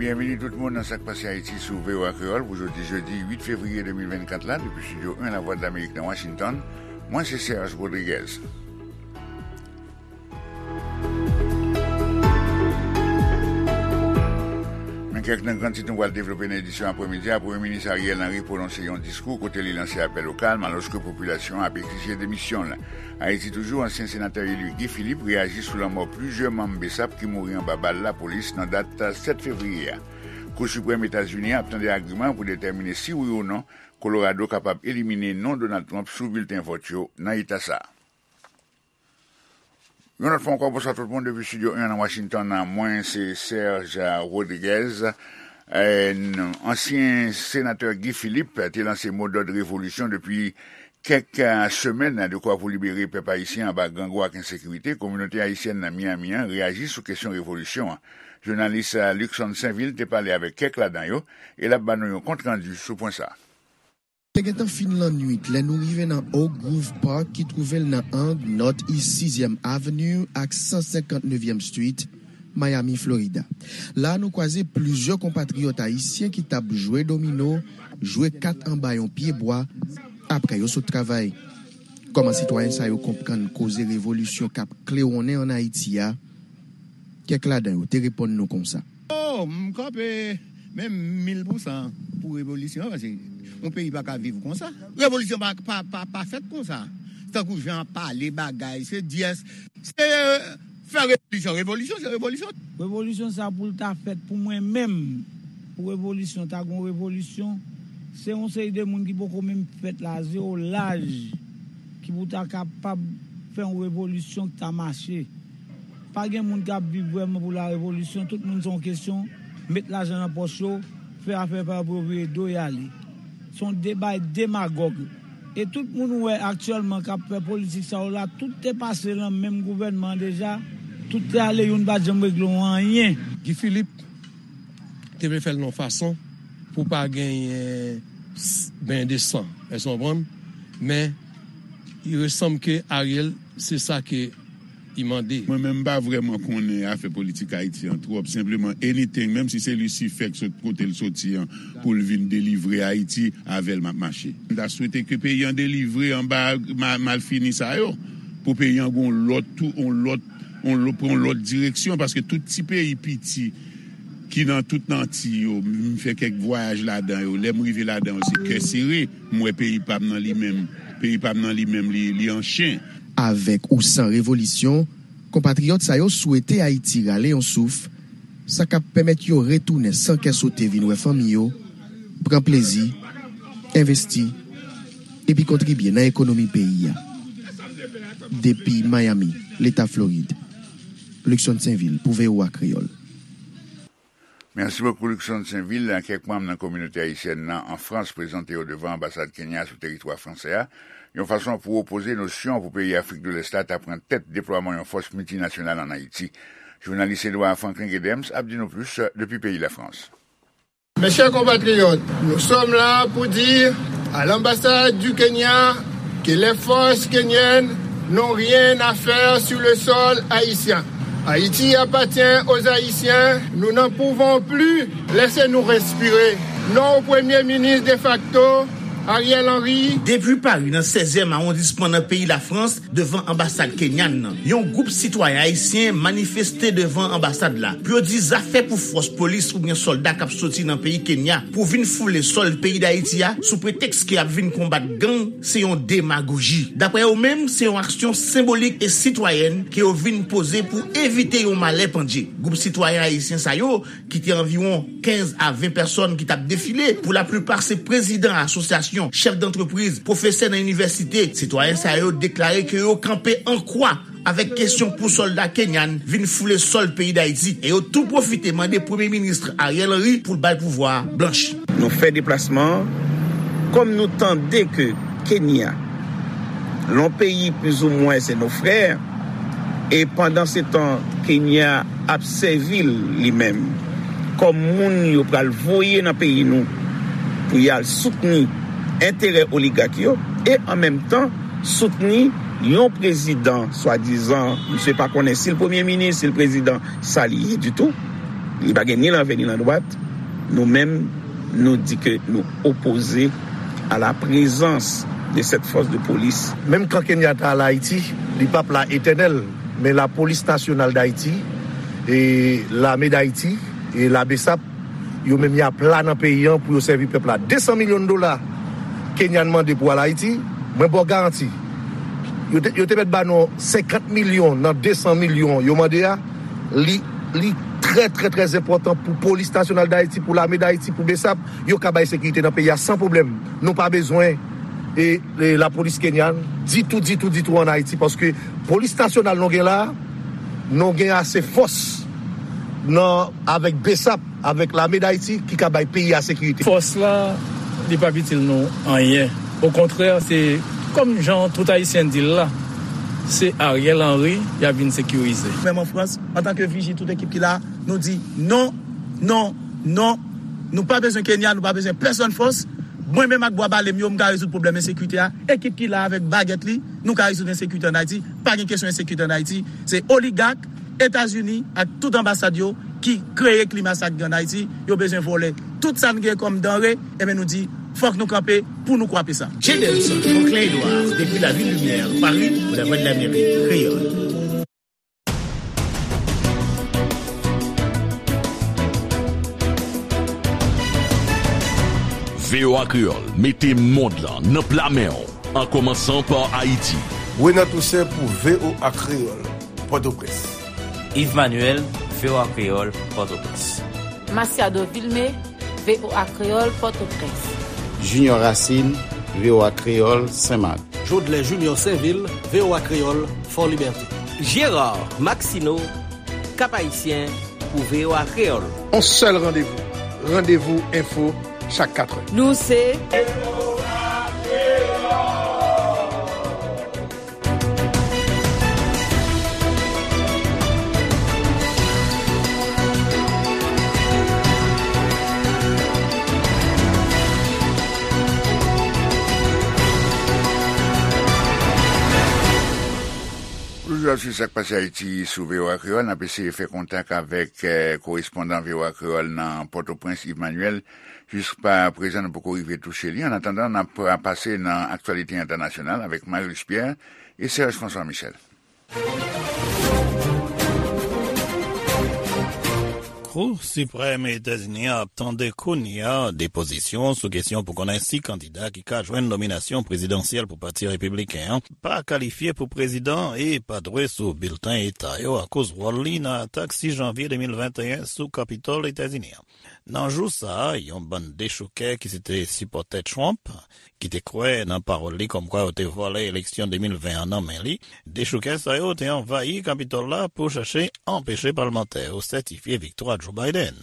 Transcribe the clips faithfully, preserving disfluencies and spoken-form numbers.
Byenveni tout moun nan Sa k Pase Ayiti sou V O A Kreyòl pou jodi jedi uit fevriye de mil vennkat la, depi Estidyo en Lavwadlamerik nan Washington. Mwen se Serge Rodriguez. Men kèk nan gran tit nou pral devlope nan edisyon aprèmidi a. Premye Minis Ariel Henry pwononse yon diskou kote li lanse apèl o kalm alòske popilasyon an ap egzije demisyon l. Ayiti toujou, ansyen senatè eli Guy Philippe reyaji sou lanmò plizyè manm BSAP ki mouri anba bal lapolis nan dat sèt fevriye a. Kou Siprèm Etazini an ap tande agiman pou detèmine si wi ou non Colorado kapab elimine non Donald Trump sou bilten vòt yo nan eta sa a. Yon lòt fwa ankò, bonswa tout moun depi Estidyo en nan Washington. Mwen se Serge Rodriguez. Eh, n-, ansyen senatè Guy Philippe te lanse modòd revolisyon depi kèk, eh, semèn, dekwa pou libere pèp ayisyen anba grangou ak ensekirite. Kominote ayisyèn nan Miami an reyaji sou kesyon revolisyon an. Jounalis, eh, Luckson Sainvil te pale avèk kèk ladan yo, e l ap ba nou yon kontrandi sou pwen sa a. Te gentan fin lannwit lè nou rive nan Oak Grove Park ki twouve l nan ang North East sizyèm Avenue ak san senkant nevyèm Street, Miami, Florida. La a, nou kwaze plizyè konpatriyòt ayisyen ki t ap jwe domino, jwe kat anba yon pyebwa, apre yo sot travay. Kòman sitwayen sa yo konprann koze revolisyon k ap klewonnen ann Ayiti a? Kèk ladan yo te reponn nou konsa. Oh, m kanpe menm mil pousan pou revolisyon an, paske yon peyi pa ka viv konsa. Revolisyon pa, pa, pa, pa fèt konsa. Tankou jan ap pale bagay, se dyès, se fè revolisyon, revolisyon, se revolisyon. Revolisyon sa pou l ta fèt pou mwen menm, pou revolisyon, ta gon revolisyon, se yon seri de moun ki poko menm fèt la, zewo laj, ki pou ta kapab fè yon revolisyon ki ta mache. Pa gen moun k ap viv vrèman pou la revolisyon. Tout moun se yon kesyon met lajan nan pòch yo, fè afè pa yo pou yo vire do y ale. Se yon deba demagòg. E tout moun ou wè aktyèlman k ap fè politik sa yo la, tout te pase nan menm gouvènman an deja, tout te ale, youn pa t janm regle yon anyen. Guy Philippe te vle fè l nan yon fason pou pa genyen s-, ben de san. Èske w konprann? Men, il ressemble que Ariel, se sa ke li mande. Mwen menm, m pa vrèman konnen afè politik Ayiti an twòp. Senpleman, anything, menm si se Lisifè k sot kote l soti an, pou l vin delivre Ayiti, avè l m ap mache. M ta swete ke peyi an delivre anba ma-, malfini sa yo, pou peyi an gon lòt tou, on lòt, on lò-, pran on lòt direksyon, paske tout ti peyi piti ki nan tout Anti yo, m fè kèk vwayaj ladan yo. Lè m rive ladan yo, se kè sere. M wè peyi pa m nan li menm. Peyi pa m nan li menm, li, li an chen. Avèk ou san revolisyon, konpatriyòt sa yo swete Ayiti rale yon souf, sa k ap pèmèt yo retounen san kè sote vin wè fanmi yo, pran plezi, envesti, epi kontribye nan ekonomi peyi a. Depi Miami, Leta Florid, Luckson Sainvil pou V O A Kreyòl. Mèsi bokou, Luckson Sainvil. Kèk manm nan kominote ayisyèn nan an Frans prezante yo devan anbasad Kenya sou teritwa fransè a, yon fason pou opoze nosyon pou peyi Afrik de Lès la ta pran tèt deplwaman yon fòs miltinasyonal ann Ayiti. Jounalis Edouard Franklin Gedems ap di nou plis depi peyi Lafrans. Mes chers compatriotes, nous sommes là pour dire à l'ambassade du Kenya que les forces kenyennes n'ont rien à faire sur le sol haïtien. Haïti appartient aux Haïtiens, nous n'en pouvons plus, laissez-nous respirer. Non au Premier ministre de facto, Ariel Henry. Depi Pari, nan sèzyèm awondisman nan peyi Lafrans, devan anbasad kenyan nan, yon gwoup sitwayen ayisyen manifeste devan anbasad la pou yo di zafè pou fòs polis oubyen sòlda k ap soti nan peyi Kenya pou vin foule sòl peyi Dayiti a sou pretèks ke y ap vin konbat gang, se yon demagoji. Daprè yo menm, se yon aksyon senbolik e sitwayèn ke yo vin poze pou evite yon malè pandye. Gwoup sitwayen ayisyen sa yo, ki te anviwon kenz a ven pèsòn ki t ap defile, pou laplipa se prezidan asosyasyon, chèf dantrepriz, pwofesè nan inivèsite, sitwayen sa yo deklare ke yo kanpe an kwa avèk kesyon pou sòlda kenyan vin foule sòl peyi Dayiti, e yo tou pwofite mande Premye Minis Ariel Henry pou l bay pouvwa a blanch. Nou fè deplasman an, kòm nou tande ke Kenya, yon peyi plizoumwen se nos frères, e pandansetan Kenya ap sèvi l li menm kòm moun yo pral voye nan peyi nou pou y al soutni enterè oligak yo, e an menm tan soutni yon prezidan, swadizan, misye pa konnen si l premye minis, si l prezidan, sa li ye ditou. Li pa gen ni lanvè ni landwat. Nou menm, nou di ke nou opoze à la présence de cette force de police. Menm kan Kenyatta al Ayiti, li p ap la etènèl, men Lapolis Nasyonal Dayiti, e Lame Dayiti, e la BSAP, yo menm y ap la nan peyi an pou yo sèvi pèp la. De san milyon dola Kenyan mande pou al Ayiti, mwen ba w garanti. Yo te, yo te mèt ba nou senkant milyon nan de san milyon yo mande a. Li, li trè, trè, trè enpòtan pou Polis Nasyonal Dayiti, pou Lame Dayiti, pou BSAP, yo ka bay sekirite nan peyi a san pwoblèm. Nou pa bezwen e, e lapolis kenyan ditou, ditou, ditou ann Ayiti, paske Polis Nasyonal nou gen la, nou gen ase fòs nan, avèk BSAP, avèk Lame Dayiti ki ka bay peyi a sekirite. Fòs la, li p ap itil nou anyen. Okontrè, se kòm jan tout Ayisyen di l la, se Ariel Henry y ap vin sekirize. Menm an Frans, antanke Viji, tout ekip ki la, nou di non, non, non. Nou pa bezwen Kenya, nou pa bezwen pèsonn fòs. Mwen menm ak bwa bale m yo, m ka rezoud pwoblèm ensekirite a. Ekip ki la avèk bagèt li, nou ka rezoud ensekirite ann Ayiti. Pa gen kesyon ensekirite ann Ayiti. Se oligak, Etazini ak tout anbasad yo ki kreye klima sa k gen ann Ayiti. Yo bezwen vòlè tout sa n gen kòm danre. Enben, nou di, fòk nou kanpe pou nou kwape sa. Jadelson Franklin Edouard, depi La Ville Lumière, Paris, pour la Voix de l'Amérique, Créole. V O A Kreyòl mete mond lan nan pla men w, an kòmansan pa Ayiti. Renan Toussaint pou V O A Kreyòl, Pòtoprens. Yves Manuel, V O A Kreyòl, Pòtoprens. Masiado Vilmé, V O A Kreyòl, Pòtoprens. Junior Racine, V O A Kreyòl, Senmak. Jodlè Junior Sainvil, V O A Kreyòl, Fò Libète. Gérard Maxineau, Cap-Haïtien, pou V O A Kreyòl. On sèl randevou, Randevou Enfo, chak katrè. Nou se Toujou ap swiv sa k pase Ayiti sou V O A Kreyòl, n ap eseye fè kontak avèk, eh, korespondan V O A Kreyòl nan Pòtoprens, Yves Manuel. Jiska prezan, nou poko rive touche li. Annatandan, n ap pase nan aktyalite entènasyonal avèk Marius Pierre e Serge François Michel. Kou Siprèm Etazini an ap tande kounye a depozisyon sou kesyon pou konnen si kandida ki ka jwenn nominasyon prezidansyèl pou Pati Repibliken an pa kalifye pou prezidan e pa dwe sou bilten eta yo akoz wòl li nan atak sis janvye de mil venteyen sou Kapitòl Etazini an. Nan jou sa a, yon bann dechoukè ki se te sipòtè Trump, ki te kwè nan pawòl li kòmkwa yo te vòlè eleksyon de mil ven an nan men li, dechoukè sa yo te anvayi Kapitòl la pou chache anpeche palmantè yo sètifye viktwa Joe Biden.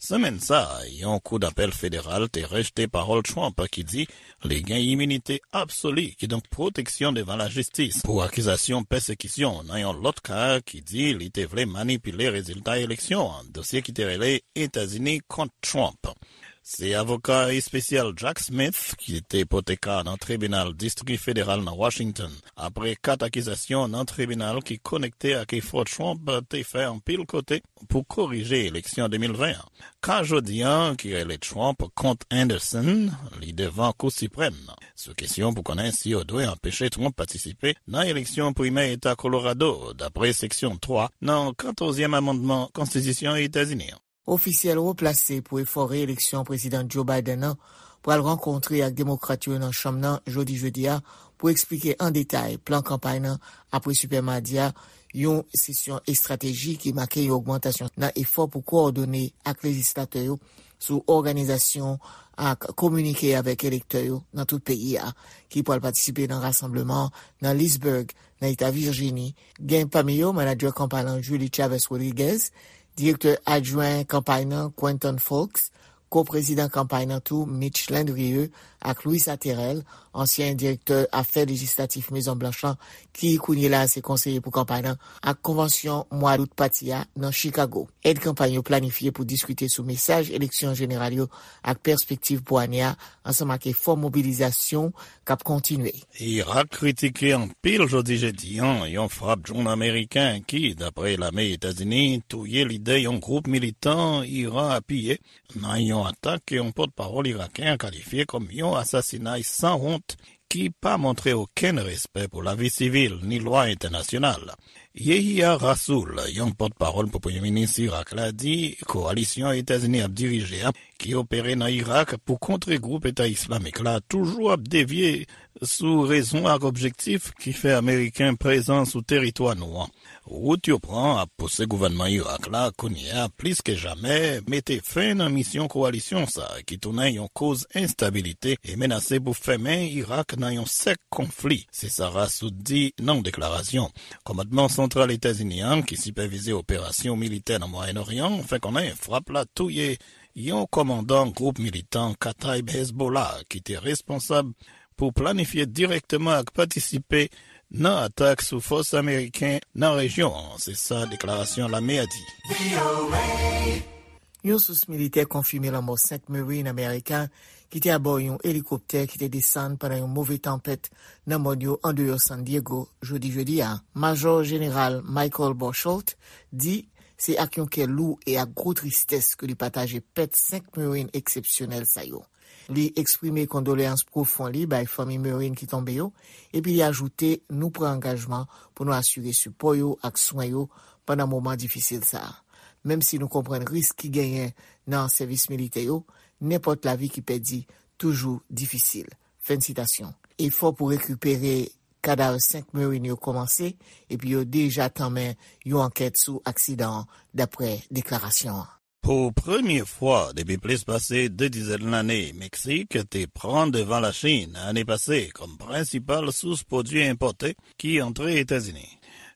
Semèn sa a, yon kou dapèl federal te rejte pawòl Trump ki di li gen iminite absoli, kidonk pwoteksyon devan lajistis, pou akizasyon pèsekisyon nan yon lòt ka ki di li te vle manipile rezilta eleksyon an, dosye ki te rele Etazini kont Trump. Se avoka espesyal Jack Smith ki te pote ka nan tribinal distri federal nan Washington, apre kat akizasyon nan tribinal ki konekte ak efò Trump te fè anpil kote pou korije eleksyon de mil ven an. Ka jodi an, ki rele Trump kont Anderson, li devan Kou Siprèm nan, sou kesyon pou konnen si yo dwe anpeche Trump patisipe nan eleksyon primè eta Kolorado, dapre seksyon twa nan katòzyèm amannman Konstitisyon Etazini an. Ofisyèl wo plase pou efò reeleksyon Prezidan Joe Biden nan pral rankontre ak Demokrat yo nan Chanm nan jodi jedi a pou eksplike an detay plan kanpay nan apre Sipè Madi a, yon sesyon estrateji ki make yon ogmantasyon nan efò pou kowòdone ak lejislatè yo sou òganizasyon ak kominike avèk elektè yo nan tout peyi a, ki pral patisipe nan rasanbleman nan Leesburg, nan eta Vijini. Gen pami yo manadjè kanpay lan Julie Chavez Rodriguez, direktè adjwen kanpay nan Quentin Fowkes, ko-prezidan kanpay nan tou Mitch Landrieu ak Luis Aterel, ansyen direktè afè lejislatif Mezon Blanch lan, ki kounye la se konseye pou kanpay lan, ak konvansyon mwa dout pati a nan Chicago. Èd kanpay yo planifye pou diskite sou mesaj eleksyon jeneral yo ak pèspektiv pou ane a, ansanm ak efò mobilizasyon k ap kontinye. Irak kritike anpil jodi jedi a yon frap dwòn ameriken ki, dapre lame Etazini, touye lidè yon gwoup militan Iran apiye nan yon atak ke yon pòtpawòl iraken an kalifye kòm yon asasinay san wont ki pa montre okenn respè pou lavi sivil ni lwa entènasyonal. Yehia Rasoul, yon pòtpawòl pou premye minis Irak la, di kowalisyon Etazini ap dirije a, ki opere nan Irak pou kontre gwoup Eta Islamik la, toujou ap devye sou rezon ak objektif ki fè Ameriken prezan sou teritwa nou an. Wout yo pran ap pouse gouvènman Irak la kounye a plis ke jamè mete fen nan misyon kowalisyon sa a ki tounen yon koz enstabilite e menase pou fèmen Irak nan yon sèk konfli, se sa Rasoul di nan yon deklarasyon. Kòmandman Santral Etazini an, ki sipèvize operasyon militè nan Mwayen Oryan, fè konnen frap la touye yon kòmandan gwoup militan Kataib Hezbollah ki te responsab pou planifye dirèkteman ak patisipe nan atak sou fòs ameriken nan rejyon an, se sa deklarasyon lame a di. Yon sous militè konfime lanmò senk Marine ameriken ki te abò yon elikoptè ki te desann pandan yon move tanpèt nan mòn yo andeyò San Diego jodi jedi a. Majò Jeneral Michael Bochold di se ak yon kè lou e ak gwo tristès ke li pataje pèt senk Marine eksepsyonèl sa yo. Li eksprime kondoleyans pwofon li bay fanmi Marine ki tonbe yo, epi li ajoute, nou pran angajman pou nou asire sipò yo ak swen yo pandan moman difisil sa a. Menm si nou konprann risk ki genyen nan sèvis militè yo, nenpòt lavi ki pèdi toujou difisil. Fen sitasyon. Efò pou rekipere kadav senk Marine yo kòmanse, epi yo deja tanmen yon ankèt sou aksidan an, dapre deklarasyon an. Pou premye fwa depi plis pase de dizèn lane, Meksik te pran devan Lachin ane pase kòm prensipal sous pwodui enpòte ki antre Etazini.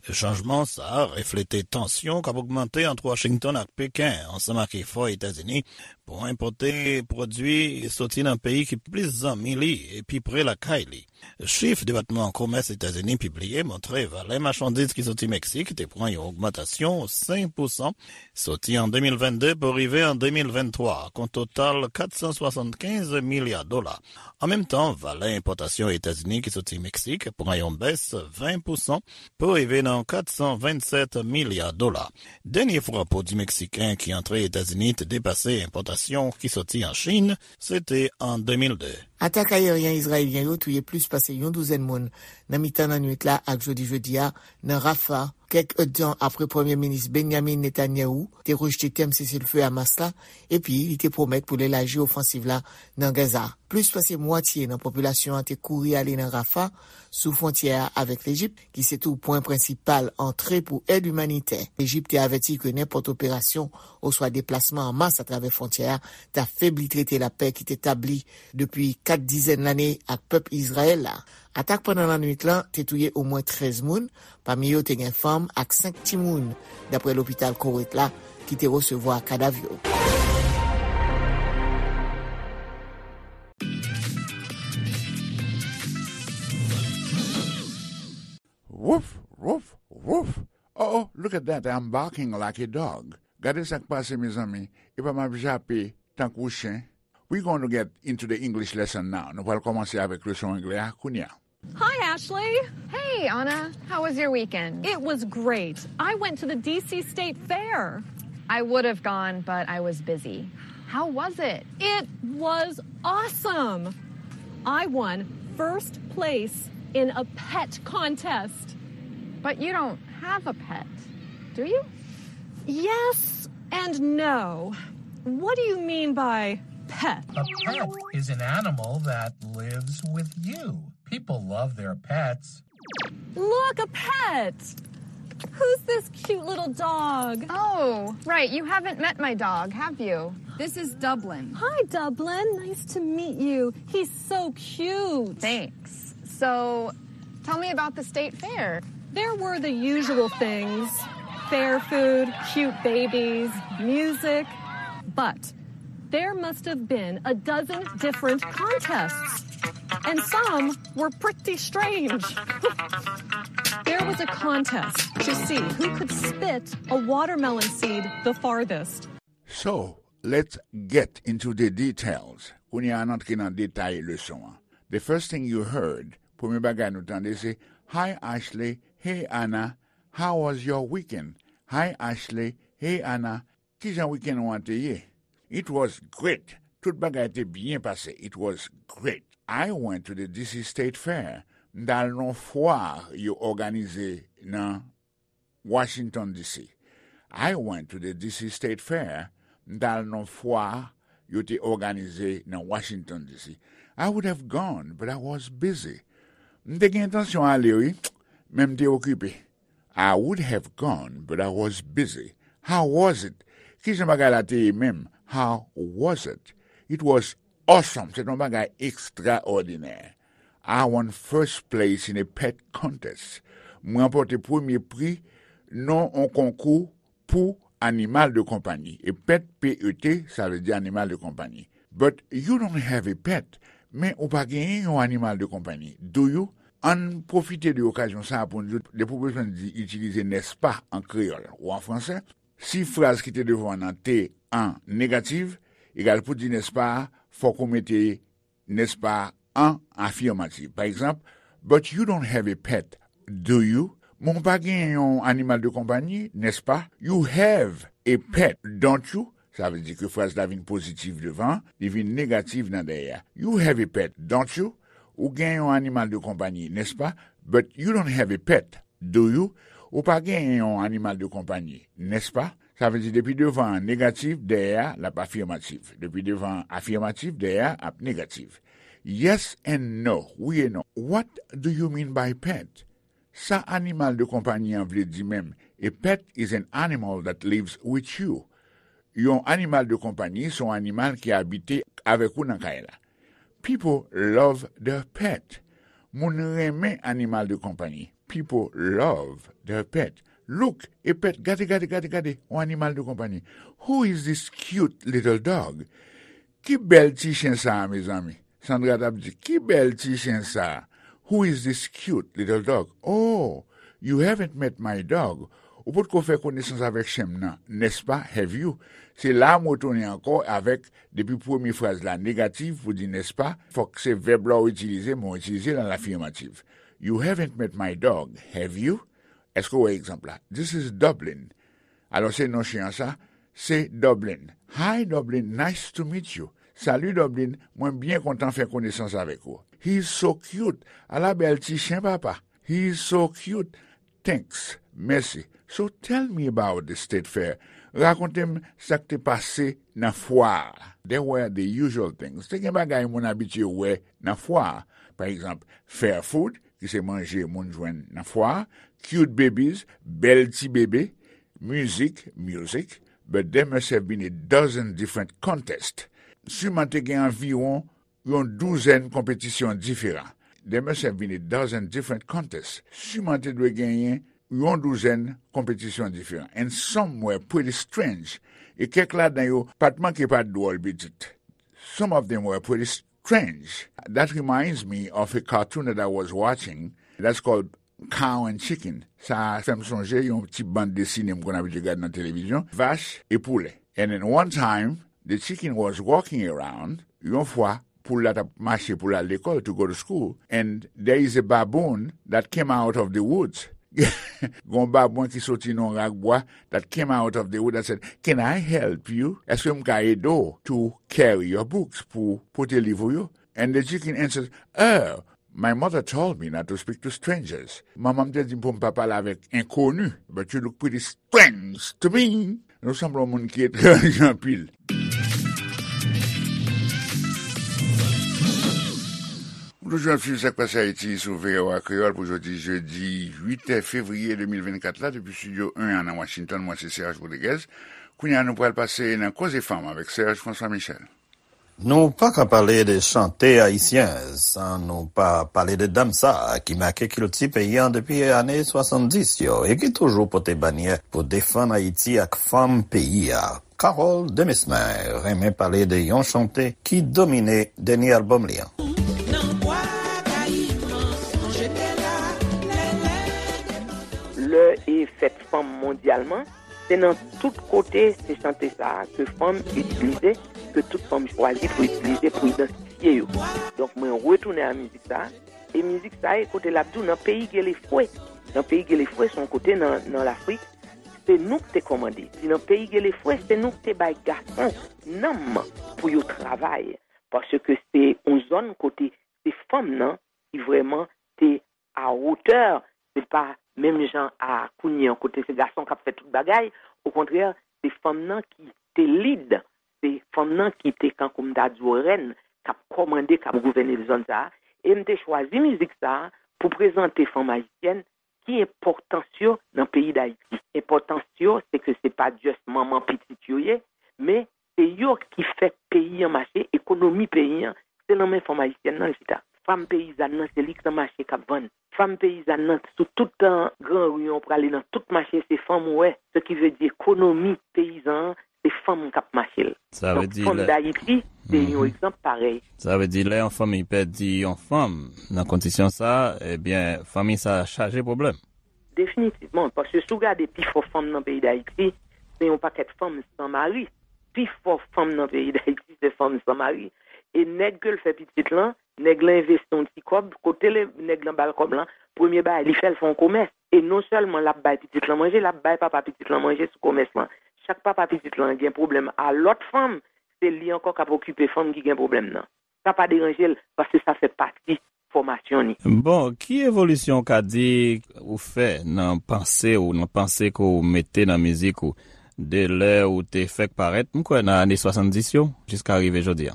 Chanjman sa a reflete tansyon k ap ogmante ant Washington ak Peken, ansanm ak efò Etazini pou enpòte pwodui soti nan peyi ki plis zanmi li e pi pre lakay li. Chif Depatman Komès Etazini pibliye montre valè machandiz ki soti Meksik te pran yon ogmantasyon senk pousan soti an de mil venn de pou rive an de mil venn twa, ak yon total kat san swasannkenz milya dola. An menm tan, valè enpòtasyon Etazini ki soti Meksik pran yon bès ven pousan pou rive nan kat san vennsèt milya dola. Dènye fwa pwodui meksiken ki antre Etazini te depase enpòtasyon ki soti an Chin, se te an de mil de. Atak ayeryen izrayelyen yo touye plis pase yon douzèn moun nan mitan lannwit la ak jodi jedi a nan Rafah, kèk èdtan apre Premye Minis Benjamin Netanyahu te rejte tèm seselfe Hamas la, epi li te pwomèt pou l elaji ofansiv la nan Gaza. Plis pase mwatye nan popilasyon an te kouri ale nan Rafah, sou fwontyè a avèk Lejip, ki se tou pwen prensipal antre pou èd imanitè. Lejip te avèti ke nenpòt operasyon oswa deplasman an mas atravè fwontyè a t ap febli trete lapè ki te tabli depi kat dizèn lane ak pèp Izrayèl la. Atak pandan lannwit lan te touye omwen trèz moun, pami yo te gen fanm ak senk timoun, dapre lopital Koweit la ki te resevwa kadav yo. Woof, woof, woof. Oh, oh, look at that, I'm barking like a dog. Gade sa k pase, mezanmi. Epa m ap jape tankou chen. We gonna get into the English lesson now. Nou pral kòmanse avèk leson anglè a kounye a. Hi, Ashley. Hey, Anna. How was your weekend? It was great. I went to the D C State Fair. I would have gone, but I was busy. How was it? It was awesome. I won first place in a pet contest. But you don't have a pet, do you? Yes and no. What do you mean by pet? A pet is an animal that lives with you. People love their pets. Look, a pet! Who's this cute little dog? Oh, right. You haven't met my dog, have you? This is Dublin. Hi, Dublin. Nice to meet you. He's so cute. Thanks. So, tell me about the state fair. There were the usual things: fair food, cute babies, music. But There must have been a dozen different contests, and some were pretty strange. There was a contest to see who could spit a watermelon seed the farthest. So, let's get into the details. Kounye a n antre nan detay leson an. The first thing you heard, premye bagay nou tande se, "Hi Ashley, hey Anna, how was your weekend?" "Hi Ashley, hey Anna, kijan weekend ou an te ye?" "It was great. Tout bagay te byen pase. It was great. I went to the D C State Fair. M t al nan fwa yo òganize nan Washington D C. I went to the D C State Fair. M t al nan fwa yo te òganize nan Washington D C. I would have gone, but I was busy. M te gen entansyon ale, wi, men m te okipe. I would have gone, but I was busy. How was it? Kijan bagay la te ye menm? How was it? It was awesome. Se t yon bagay ekstraòdinè. I won first place in a pet contest. Mwen ranpòte premye pri nan yon konkou pou animal de konpayi. E pet, P E T, sa vle di animal de konpayi. But you don't have a pet. Men ou pa genyen yon animal de konpayi. Do you? Ann pwofite de okazyon sa a pou n di w, depi w bezwen di itilize nèspa an kreyòl ou an fransè, si fraz ki te devan w nan te an negatif, egal pou di nèspa a, fòk ou mete nèspa an afirmatif. Pa egzanp, "But you don't have a pet, do you?" Men w pa gen yon animal de konpayi, nèspa? You have a pet, don't you? Sa vle di ke fraz la vin pozitif devan, li vin negatif nan dèyè a. You have a pet, don't you? Ou gen yon animal de konpayi, nèspa? But you don't have a pet, do you? Ou pa gen yon animal de konpayi, nèspa? Sa vle di depi devan an negatif, dèyè a l ap afirmatif. Depi devan an afirmatif, dèyè a ap negatif. Yes and no, wi e non. What do you mean by pet? Sa animal de konpayi an vle di menm? A pet is an animal that lives with you. Yon animal de konpayi se yon animal ki abite avèk ou nan kay la. People love their pet. Moun renmen animal de konpayi. People love their pet. Look, a pet, gade, gade, gade, gade, yon animal de konpayi. Who is this cute little dog? Ki bèl ti chen sa a, mezanmi? Sandra t ap di, "Ki bèl ti chen sa a? Who is this cute little dog? Oh, you haven't met my dog." Ou potko fè konesans avèk chen m nan, nèspa? Have you? Se la a m retounen ankò avèk, depi premye fraz la negatif pou di nèspa, fòk se vèb la w itilize, men w itilize l an afirmatif. You haven't met my dog, have you? Èske w wè egzanp la? This is Dublin. Alò, se non chen an sa, se Dublin. Hi Dublin, nice to meet you. Salut Dublin, mwen byen kontan fè konesans avèk ou. He's so cute. Ala bèl ti chen papa. He's so cute. Thanks. Mèsi. So tell me about the state fair. Rakonte m sa k te pase nan fwa a. There were the usual things. Te gen bagay moun abitye wè nan fwa a. Pa egzanp, fair food, ki se manje moun jwenn nan fwa a, cute babies, bèl ti bebe, mizik, music, but there must have been a dozen different contests. Siman te gen anviwon yon douzèn konpetisyon diferan. There must have been a dozen different contests. Siman te dwe genyen yon douzèn konpetisyon diferan. And some were pretty strange. E kèk ladan yo pa t manke pa t dwòl pitit. Some of them were pretty strange. That reminds me of a cartoon that I was watching that's called Cow and Chicken. Sa fè m sonje yon ti bann desine m konn abitye gade nan televizyon, Vach e Poulè. And then one time, the chicken was walking around. Yon fwa, poul la t ap mache pou l al lekòl, to go to school, and there is a baboon that came out of the woods. Gon babwen ki soti nan yon rak bwa, that came out of the wood and said, "Can I help you?" Èske m ka ede w to carry your books, pou pote liv ou yo? And the chicken answered, "Oh, my mother told me not to speak to strangers." Manman m te di m pou m pa pale avèk enkoni. "But you look pretty strange to me." Nou sanble yon moun ki etranje anpil. Ou toujou ap swiv Sa k Pase Ayiti sou V O A Kreyòl pou jodi jedi uit fevriye de mil vennkat la, depi estidyo en an nan Washington. Mwen se Serge Rodriguez. Kounye a, nou pral pase nan Koze Fanm avèk Serge François Michel. Nou pa ka pale de chante ayisyen san nou pa pale de dam sa a ki make kilti peyi a depi ane swasanndis yo e ki toujou pote banyè pou defann Ayiti ak fanm peyi a. Carole Demesmin renmen pale de yon chante ki domine dènye albòm li an. Lè e fèt fanm mondyalman, se nan tout kote se chante sa a ke fanm itilize, ke tout fanm chwazi pou itilize pou idantifye yo. Donk mwen retounen a mizik sa a, e mizik sa a e kote l ap di w nan peyi Gelefwe. Nan peyi Gelefwe se yon kote nan, nan Lafrik, se nou k te kòmande. Si nan peyi Gelefwe, se nou k te bay gason nanm pou yo travay. Paske se yon zòn kote se fanm nan ki vrèman te a wotè, se pa menm jan a kounye an kote se gason k ap fè tout bagay, okontrè, se fanm nan ki te lid, se fanm nan ki te kankou m ta di w rèn, k ap kòmande, k ap gouvène zòn sa a, e m te chwazi mizik sa a pou prezante fanm ayisyèn ki enpòtans yo nan peyi Dayiti. Enpòtans yo, se ke se pa just manman pitit yo ye, men se yo ki fè peyi an mache, ekonomi peyi an, se nan men fanm ayisyèn nan l chita. Fanm peyizàn nan, se li k nan mache k ap vann. Fanm peyizàn nan, sou tout tan gran ri an, w prale nan tout mache, se fanm ou wè. Se ki vle di ekonomi peyizan an, se fanm k ap mache l. Donk, fanm Dayiti, se yon egzanp parèy. Sa vle di, lè yon fanmi pèdi yon fanm nan kondisyon sa, ebyen, fanmi sa chaje pwoblèm. Definitivman, paske si w gade pifò fanm nan peyi Dayiti, se yon pakèt fanm san mari. Pifò fanm nan peyi Dayiti, se fanm san mari. E nèg ke l fè pitit lan, nèg lan envesti yon ti kòb, kote le, nèg lan ba l kòb lan, premye bagay li fè, l fè yon komès. E non sèlman l ap bay pitit lan manje, l ap bay papa pitit lan manje sou komès lan. Chak papa pitit lan gen pwoblèm a lòt fanm, se li ankò k ap okipe fanm ki gen pwoblèm nan. Sa pa deranje l, paske sa fè pati fòmasyon ni. Bon, ki evolisyon w ka di ou fè nan panse ou, nan panse ke w mete nan mizik ou, de lè ou te fèk parèt, m kwè nan ane swasanndis yo, jiska rive jodi a?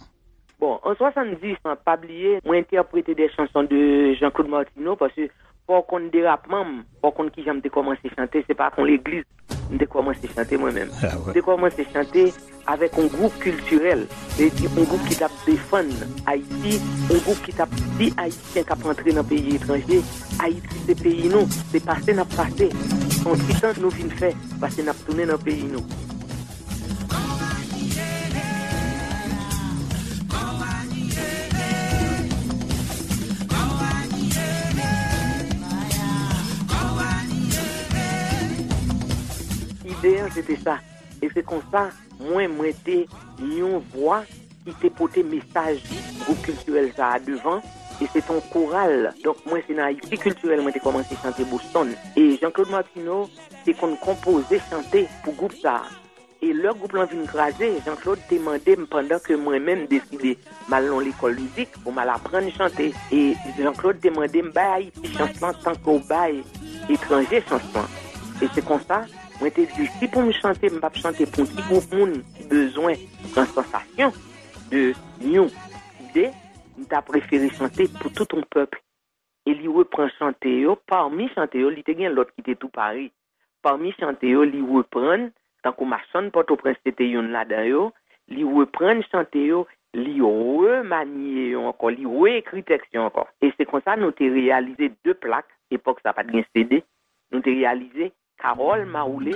Bon, an swasanndis an, pa bliye, mwen entèprete de chanson de Jean-Claude Martineau, paske fò w konn derapman m, fò w konn kijan m te kòmanse chante, se pa ak yon legliz m te kòmanse chante mwen menm. M te kòmanse chante avèk yon gwoup kiltirèl, se di yon gwoup ki t ap defann Ayiti, yon gwoup ki t ap di Ayisyen k ap antre nan peyi etranje, Ayiti se peyi nou, se pase n ap pase. Se yon ti tan nou vin fè, pase n ap tounen nan peyi nou. Ide an se te sa. E se konsa, mwen, mwen te yon vwa ki te pote mesaj gwoup kiltirèl sa a devan, e se te yon koral. Donk, mwen, se nan Ayiti Kiltirèl mwen te kòmanse chante Boston. E Jean-Claude Martineau te konn konpoze chante pou gwoup sa a. E lè gwoup lan vin kraze, Jean-Claude te mande m, pandan ke mwen menm deside m al nan lekòl mizik pou m al aprann chante. E Jean-Claude te mande m, bay Ayiti chans lan tankou w bay etranje chans lan. E se konsa, mwen te di, si pou m chante, m p ap chante pou yon ti gwoup moun ki bezwen pran sansasyon de yon ide, m ta prefere chante pou tout yon pèp. E li repran chante yo, pami chante yo, li te gen lòt ki te tou pare. Pami chante yo, li reprann, tankou Machann Pòtoprens se te youn ladan yo, li reprann chante yo, li remanye yo ankò, li reekri tèks yo ankò. E se konsa nou te reyalize de plak, epòk sa pa t gen C D, nou te reyalize Carole Mawoulé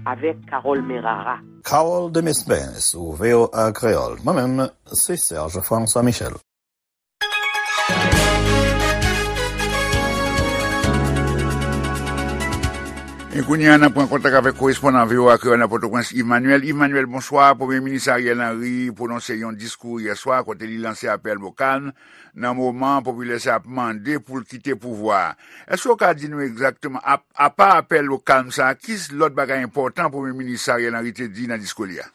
avèk Carole Merara. Carole Demesmin sou V O A Kreyòl. Mwen menm, se Serge François Michel. E kounye a, n ap pran kontak avèk korespondan V O A Kreyòl nan Pòtoprens, Yves Manuel. Yves Manuel, bonswa. Premye Minis Ariel Henry pwononse yon diskou yè swa kote li lanse apèl o kalm nan moman popilè sa ap mande pou l kite pouvwa a. Èske w ka di nou egzakteman, apa apèl o kalm sa a, ki lòt bagay enpòtan Premye Minis Ariel Henry te di nan diskou li a?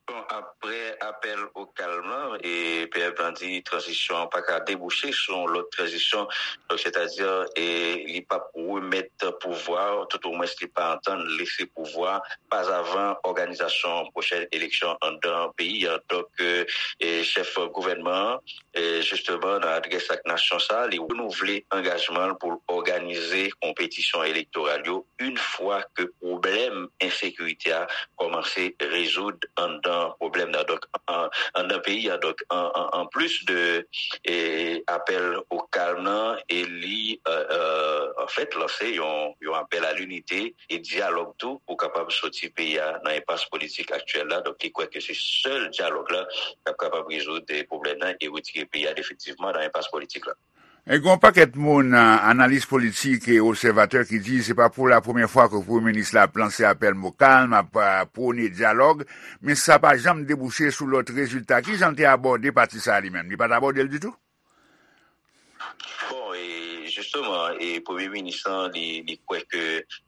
Bon, apre apèl o kalm lan, e P M lan di tranzisyon an pa ka debouche sou yon lòt tranzisyon, donk sètadi e li p ap remèt pouvwa, toutomwens li pa antann lese pouvwa, pa avan òganizasyon pwochèn eleksyon anndan peyi an. Donk, e chèf gouvènman an, e jisteman, nan adrès ak nasyon sa a, li renouvle angajman l pou l òganize konpetisyon elektoral yo yon fwa ke pwoblèm ensekirite a kòmanse rezoud anndan pwoblèm nan. Donk, an, anndan peyi a. Donk, an, an, an plis de e, apèl o kalm nan, e li, e, e, anfèt, lanse yon, yon apèl a linite e dyalòg tou pou kapab soti peyi a nan enpas politik aktyèl la. Donk, li kwè ke se sèl dyalòg la k ap kapab rezoud, e, pwoblèm nan e retire peyi a definitivman nan enpas politik la. E gen yon pakèt moun, a, analis politik e obsèvatè ki di se pa pou la premyè fwa ke premye minis la ap lanse apèl mo kalm, ap, a, pwone dyalòg, men sa pa janm debouche sou lòt rezilta. Ki jan l te abòde pati sa a li menm? Li pa t abòde l ditou? Bon, e jisteman, e premye minis lan, li, li kwè ke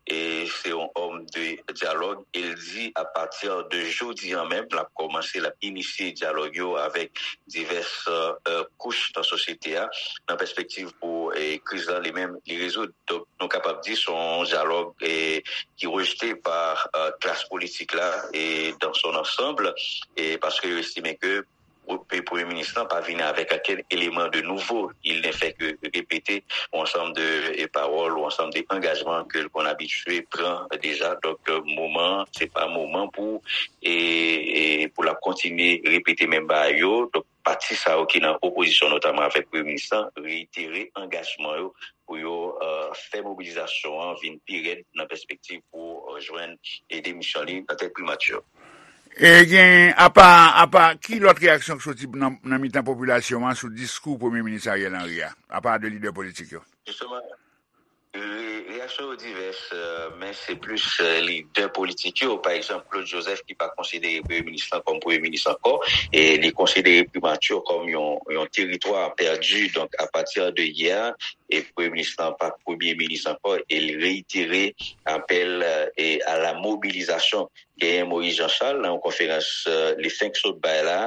e se yon òm de dyalòg, e l di apati de jodi a menm, l ap kòmanse, l ap inisye dyalòg yo avèk divès, e, kouch nan sosyete a, nan pèspektiv pou, e, kriz lan li menm, li rezoud. Donk, nou kapab di se yon dyalòg, e, ki rejte pa, e, klas politik la, e dans son ensemble, e paske yo estime ke Pre-, premye minis lan pa vini avèk okenn eleman de nouvo. Il ne fait que répéter yon ansanm de, e, pawòl, yon ansanm de angajman ke l konn abitye pran deja. Donk, e, moman, se pa moman pou, e, e, pou l ap kontinye repete menm bagay yo. Donk, pati sa yo ki nan opozisyon, notaman avèk premye minis lan, reitere angajman yo pou yo, e, fè mobilizasyon an vin pi rèd nan pèspektiv pou, e, jwenn, e, demisyon li nan tèt primati. E gen, apa, apa, ki lòt reyaksyon k soti nan, nan mitan popilasyon an sou diskou Premye Minis Ariel Henry a, apa de lidè politik yo? Jisteman, re-, reyaksyon yo divès, e, men se plis, e, lidè politik yo. Pa egzanp, Claude Joseph ki pa konsidere Premye Minis lan kòm Premye Minis ankò, e li konsidere primati kòm yon, yon teritwa pèdi. Donk, apati de yè, e Premye Minis lan pa Premye Minis ankò, e li reitere apèl, e, a la mobilizasyon. Genyen Moïse Jean Charles nan yon konferans, e, li fenk sot bay la,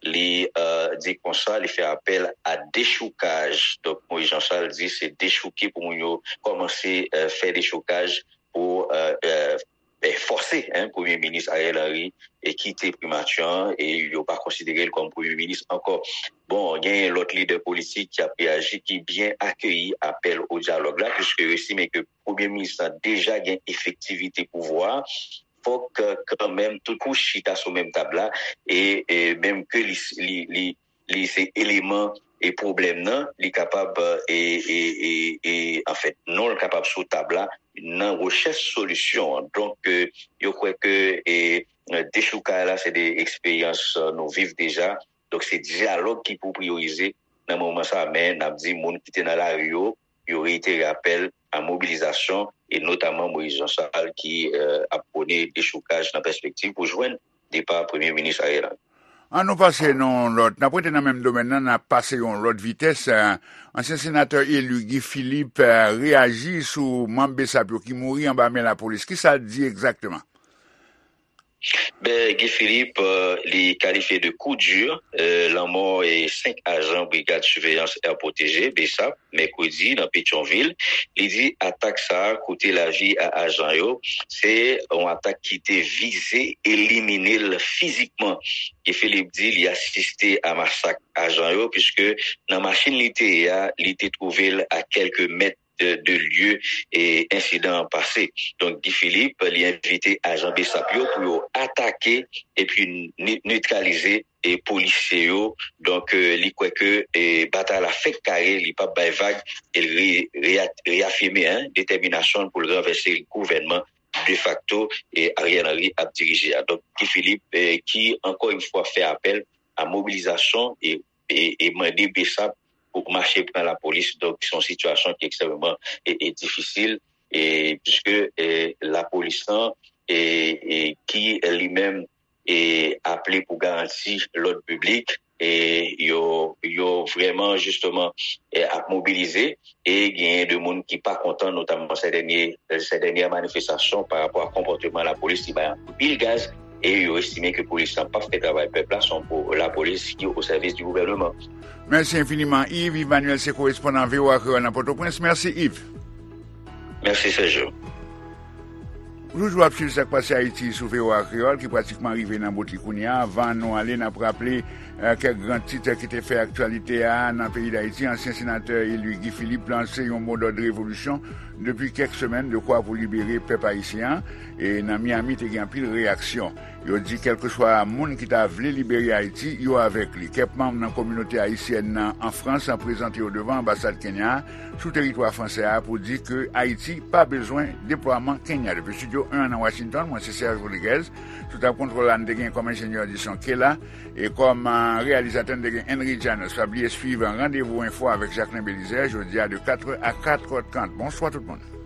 li, e, di konsa, li fè apèl a dechoukaj. Donk, Moïse Jean Charles di se dechouke pou moun yo kòmanse, e, fè dechoukaj pou, e, e, e, fòse, en, Premye Minis Ariel Henry e kite primati an, e yo pa konsidere l kòm Premye Minis ankò. Bon, genyen lòt lidè politik ki ap reyaji, ki byen akeyi apèl o dyalòg la, piske yo estime ke Premye Minis lan deja gen efektivite pouvwa a, fòk, e, kanmenm tout kouch chita sou menm tab la, e, e menm ke li, li, li, li se eleman e pwoblèm nan, li kapab, e, e, e, e, anfèt, non l kapab sou tab la nan rechèch solisyon an. Donk, e, yo kwè ke, e, dechoukay la, se de eksperyans, e, nou viv deja. Donk, se dyalòg ki pou priyorize nan moman sa a. Men, n ap di moun ki te nan lari yo, yo reitere apèl a mobilizasyon, e notaman Moïse Jean Charles ki, e, ap pwone dechoukaj nan pèspektiv pou jwenn depa Premye Minis Ariel Henry. An nou pase nan yon lòt, n ap rete nan menm domèn nan, n ap pase yon lòt vitès. E, ansyen senatè eli Guy Philippe, e, reyaji sou manm BSAP yo ki mouri anba men lapolis. Kisa l di egzakteman? Ben, Guy Philippe, e, li kalifye de coup dur, e, lanmò, e, senk ajan Brigad Siveyans Air Protégé, BSAP, mèkredi, nan Petyonvil. Li di atak sa a koute lavi a ajan yo. Se yon atak ki te vize elimine l fizikman. Guy Philippe di li asiste a masak ajan yo, piske nan machin li te ye a, li te twouve l a kèlke mèt de, de lye, e, ensidan an pase. Donk, Guy Philippe, li envite ajan BSAP yo pou yo atake epi ne-, netralize, e, polisye yo. Donk, e, li kwè ke, e, batay la fèk kare, li p ap bay vag, e l re-, reya-, reyafime, en, detèminasyon l pou l ranvèse gouvènman defakto, e, Ariel Henry ap dirije a. Donk, Guy Philippe, e, ki, ankò yon fwa, fè apèl a mobilizasyon e, e, e mande BSAP pou mache pran lapolis. Donk, se yon sitiyasyon ki ekstrèmeman, e, e difisil, e, piske, e, lapolis lan, e, e ki li menm, e, aple pou garanti lòd piblik, e, yo, yo vrèman, jisteman, e, ap mobilize, e genyen de moun ki pa kontan, notaman sè dènye, sè dènyè manifestasyon pa rapò a konpòteman lapolis, li bay anpil gaz, e yo estime ke polis lan p ap fè travay pèp la, se yon po-, lapolis ki o sèvis di gouvèneman. Mèsi enfiniman, Yves. Yves Manuel se korespondan VOA Kreyòl nan Pòtoprens. Mèsi, Yves. Mèsi, Sergio. Toujou ap swiv sa k pase Ayiti sou V O A Kreyòl ki pratikman rive nan bout li kounye a. Anvan nou ale, n ap raple eh, kèk gran tit ki te fè aktyalite a nan peyi Dayiti. Ansyen senatè eli Guy Philippe lanse yon modòd revolisyon depi kèk semèn, dekwa pou libere pèp ayisyen an. E nan Miami, te gen anpil reyaksyon. Yo di kèlkeswa moun ki ta vle libere Ayiti, yo avèk li. Kèk manm nan kominote ayisyèn nan an Frans an prezante yo devan anbasad Kenya a sou teritwa fransè a pou di ke Ayiti pa bezwen deplwaman Kenya. Depi Studio en nan Washington, mwen se Serge Rodriguez. Sou tab kontwòl la, n te gen kòm enjenyè di son Kela. E kòm eh, reyalizatè, n te gen Henry Janos. Pa bliye swiv Randevou Enfo avèk Jacquelin Belizaire, jodi a de katrè a katrè trant. Bonswa tout moun.